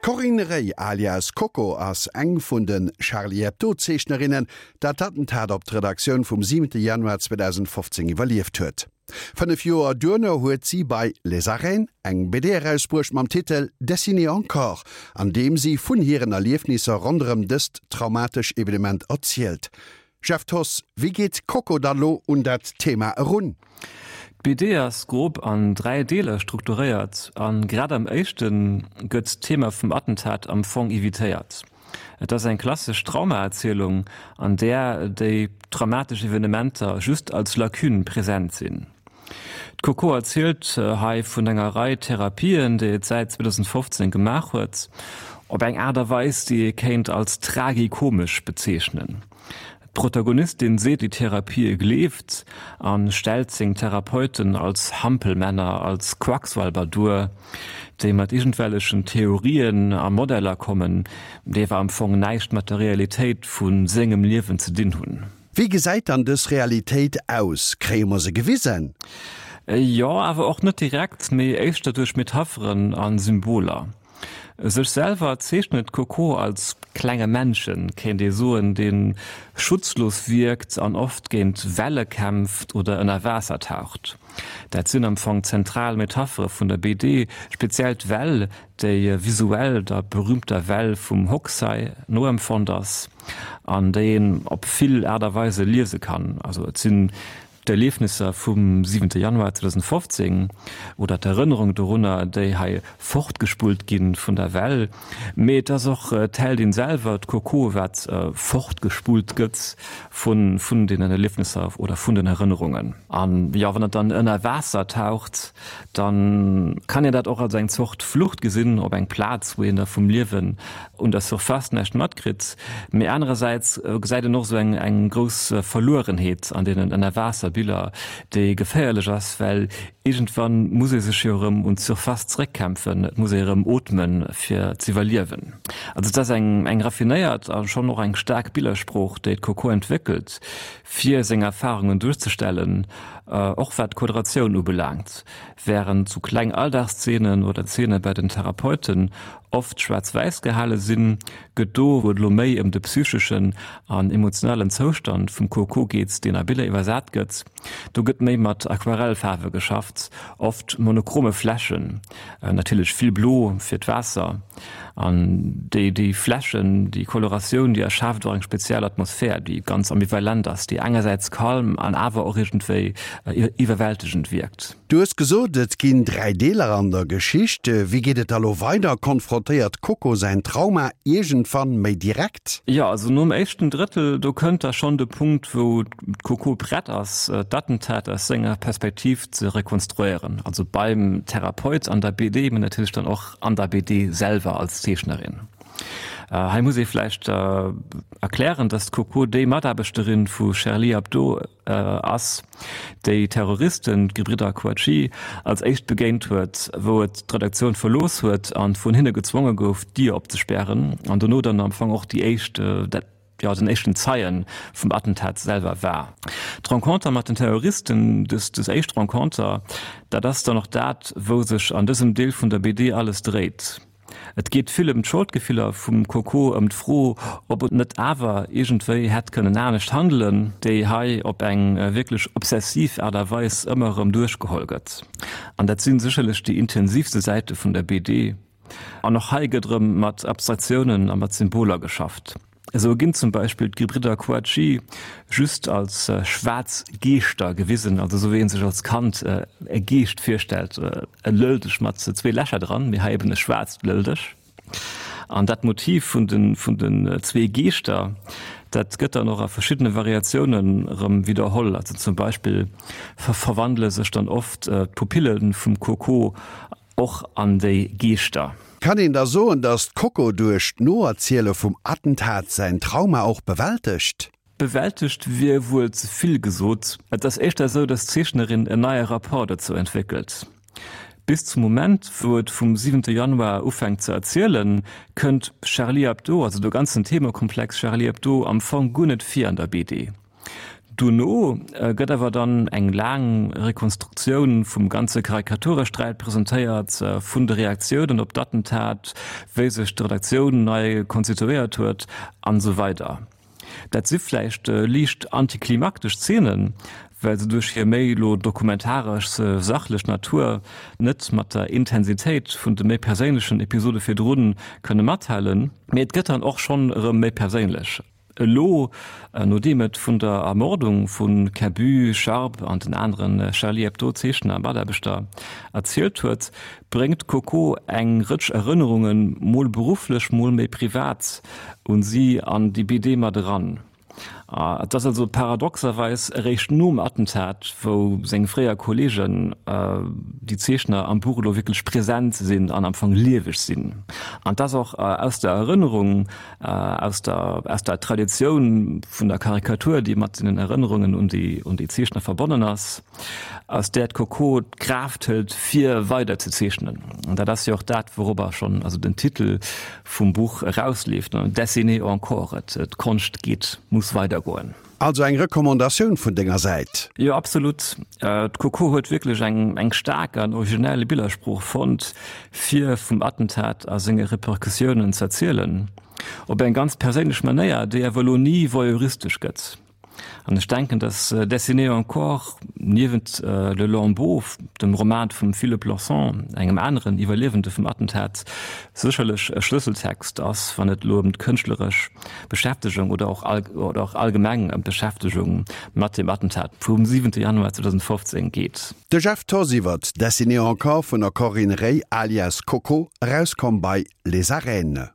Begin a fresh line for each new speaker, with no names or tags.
D'Corinne Rey alias Coco ass eng vun de Charlie Hebdo-Zeechnerinnen, dat d'Attentat op d'Redaktioun vum 7 Januar 2015 iwwerlieft huet. 5 Joer duerno huet si bei Les Arènes eng BD erausbruecht mam Titel Dessiner encore, an deem si vun hiren Erliefnisser ronderëm dëst traumatesch Evenement erzielt. Jeff Thoss, wéi geet d'Coco da lo un dat Thema erun?
D'BD ass grob an 3 Deeler strukturéiert a grad am éischte gëtt d'Thema vum Attentat am Fong evitéiert. Et ass eng klassesch Traumaerzielung, an där déi traumatesch Evenementer just als Lacune present sinn. D'Coco erzielt hei vun enger Rei Therapien, déi et säit 2015 gemaach huet, op eng Aart a Weis, déi ee kéint als tragikomesch bezeechnen. D'Protagonistin seet déi Therapië gleeft a stellt seng Therapeuten als Hampelmänner, als Quacksalber duer, déi mat iergendwellechen Theorien a Modeller kommen, déi awer am Fong näischt mat der Realitéit vu sengem Liewen ze dinn hunn.
Wéi gesäit dann dës Realitéit aus? Kréie mer se gewisen?
Jo, awer och net direkt, mee éischter duerch Metapheren a Symboler. Sech selwer zeechnet d'Coco als klenge Männchen, kéint ee soen, dee schutzlos wierkt an oft géint Welle kämpft oder ënner Waasser taucht. Dat sinn am Fong zentral Metaphere vun der BD, speziell d'Well, déi visuell der berüümter Well vum Hokusai noempfonnt ass an déi een op vill Aart a Weise liese kann. Also et sinn D'Erliefnisser vum siwente Januar 2015 oder d'Erënnerung dorunner, déi hei fortgespullt gi vun der Well. Mee et ass och d'Heldin selwer, d'Coco, wat fortgespullt gëtt vun deenen Erliefnisser oder vun den Erënnerungen. An jo, wann et dann ënner Waasser taucht, da kann een dat och als eng Zort Flucht gesinn op eng Plaz, wou een da vum Liewen un der Surface näischt matkritt, mee anerersäits gesäit een och esou eng eng grouss Verluerenheet an deenen Ënnerwaasserbiller, déi geféierlech ass, well iergendwann muss ee sech jo erëm un d'Surface zeréckkämpfen, et muss ee erëm ootmen, fir z'iwwerliewen. Also et ass eng eng raffinéiert a schonn och eng staark Billersprooch, déi d'Coco entwéckelt, fir seng Erfarungen duerzestellen, och wat d'Quadratioun ubelaangt. Wärend sou kleng Alldagsszenen oder Zeene bei den Therapeuten oft schwaarz-wäiss gehale sinn, gëtt do, wou et elo méi ëm de psycheschen an emotionalen Zoustand vum Coco geet, deen a Biller iwwersat gëtt, do gëtt méi mat Aquarellfaarwe geschafft, oft monochrome Flächen, natierlech vill Blo fir d'Waasser. An déi déi Flächen, déi Coloratioun, déi erschaaft och eng speziell Atmosphär, déi ganz ambivalent ass, déi engersäits calm an awer och iergendwéi iwwerwältegend wierkt.
Du hues gesot, et ginn 3 Deeler an der Geschicht. Wéi geet et da lo weider? Konfrontéiert d'Coco säin Trauma iergendwann méi direkt?
Jo, also nom éischten Drëttel, do kënnt da schonn de Punkt, wou d'Coco prett ass, d'Attentat aus senger Perspektiv ze rekonstruéieren. Also beim Therapeut an der BD, mee natierlech dann och an der BD selwer als Zeechnerin. Hei muss ee vläicht erklären, dass d'Coco déi Mataarbechterin vu Charlie Hebdo ass, déi Terroristen, d'Gebridder Kouachi, als éischt begéint huet, wou et d'Redaktioun verlooss huet an vun hinne gezwonge gouf, d'Dier opzespären an dono dann am Fong och déi éischt, jo, den éischten Zeien vum Attentat selwer war. D'Renconter mat den Terroristen, dës, dës éischt Renconter, dat ass dann och dat, wou sech an dësem Deel vun der BD alles dréit. Et geet vill ëm d'Scholdgefiller vum Coco, ëm d'Fro, ob et net awer iergendwéi hätt kënnen anescht handelen, déi hei op eng wierklech obsessiv Aart a Weis ëmmer erëm duerchgeholl gëtt. An dat si sécherlech déi intensivste Säite vun der BD. An och hei gëtt erëm mat Abstraktiounen a mat Symboler geschafft. Esou ginn zum Beispill d'Gebridder Kouachi just als schwaarz Geeschter gewisen, also esou wéi ee sech als Kand e Geescht virstellt, e Lëldeg mat zwee Lächer dran, mee hei eben e schwaarzt Lëldeg. An dat Motiv vun den vun den zwee Geeschter, dat gëtt dann och a verschiddene Variatiounen erëm widderholl. Also zum Beispill verwandele sech dann oft d'Pupille vum Coco Och an déi Geeschter.
Kann een da soen, datt d'Coco duerch d'Noerziele vum Attentat säin Trauma och bewältegt?
Bewältegt wier wuel ze vill gesot. Et ass éischter esou, datt d'Zeechnerin en neie Rapport dozou entwéckelt. Bis zum Moment, wou et vum siwente Januar ufänkt ze erzielen, kënnt Charlie Hebdo, also de ganzen Themekomplex Charlie Hebdo, am Fong guer net vir an der BD. Dono gëtt awer dann eng laang Rekonstruktioun vum ganze Karikaturesträit presentéiert, vun de Reaktiounen op d'Attentat, wéi sech d'Redaktioun nei konstituéiert huet an esou weider. Dat si vläicht liicht antiklimaktesch Zeenen, well se duerch hir méi elo dokumentaresch sachlech Natur net mat der Intensitéit vun de méi perséinlechen Episode virdru kënne mathalen. Mee et gëtt dann och schonn erëm méi perséinlech. Elo, nodeem et vun der Ermordung vu Cabu, Charb an den anere Charlie Hebdo-Zeechner a Mataarbechter erzielt huet, bréngt d'Coco eng Rëtsch Erënnerungen, mol berufflech, mol méi privat, un si an déi BD mat eran. Et ass also paradoxerweis eréischt nom Attentat, wou seng fréier Kolleegen, déi Zeechner, am Buch elo wierklech present sinn an am Fong lieweg sinn. An et ass och aus der Erënnerung, aus der, aus der Traditioun vun der Karikatur, déi mat den Erënnerungen un déi, un déi Zeechner verbonnen ass, aus där d'Coco d'Kraaft hëlt, fir weider ze zeechnen. An dat ass jo och dat, wourobber schonn also den Titel vum Buch erausleeft, Dessiner encore, et, d'Konscht geet, muss weidergoen.
Also eng Recommandatioun vun denger Säit?
Jo, absolut. D'Coco huet wierklech eng eng staark an originell Billersprooch fonnt, fir vum Attentat a senge Repercussiounen z'erzielen. Op eng ganz perséinlech Manéier, déi awer elo ni voyeuristesch gëtt. An ech denken, dass Dessiner encore, niewent Le Lambeau, dem Roman vum Philip Lawson, engem aneren Iwwerliewende vum Attentat, sécherlech e Schlësseltext ass, wann et elo ëm d'kënschtleresch Beschäftegung oder och oder och allgemeng ëm d'Beschäftegung mat dem Attentat vum 7 Januar 2015 geet.
De Jeff Thoss iwwert Dessiner encore vun der Corinne Rey alias Coco, erauskomm bei Les Arènes.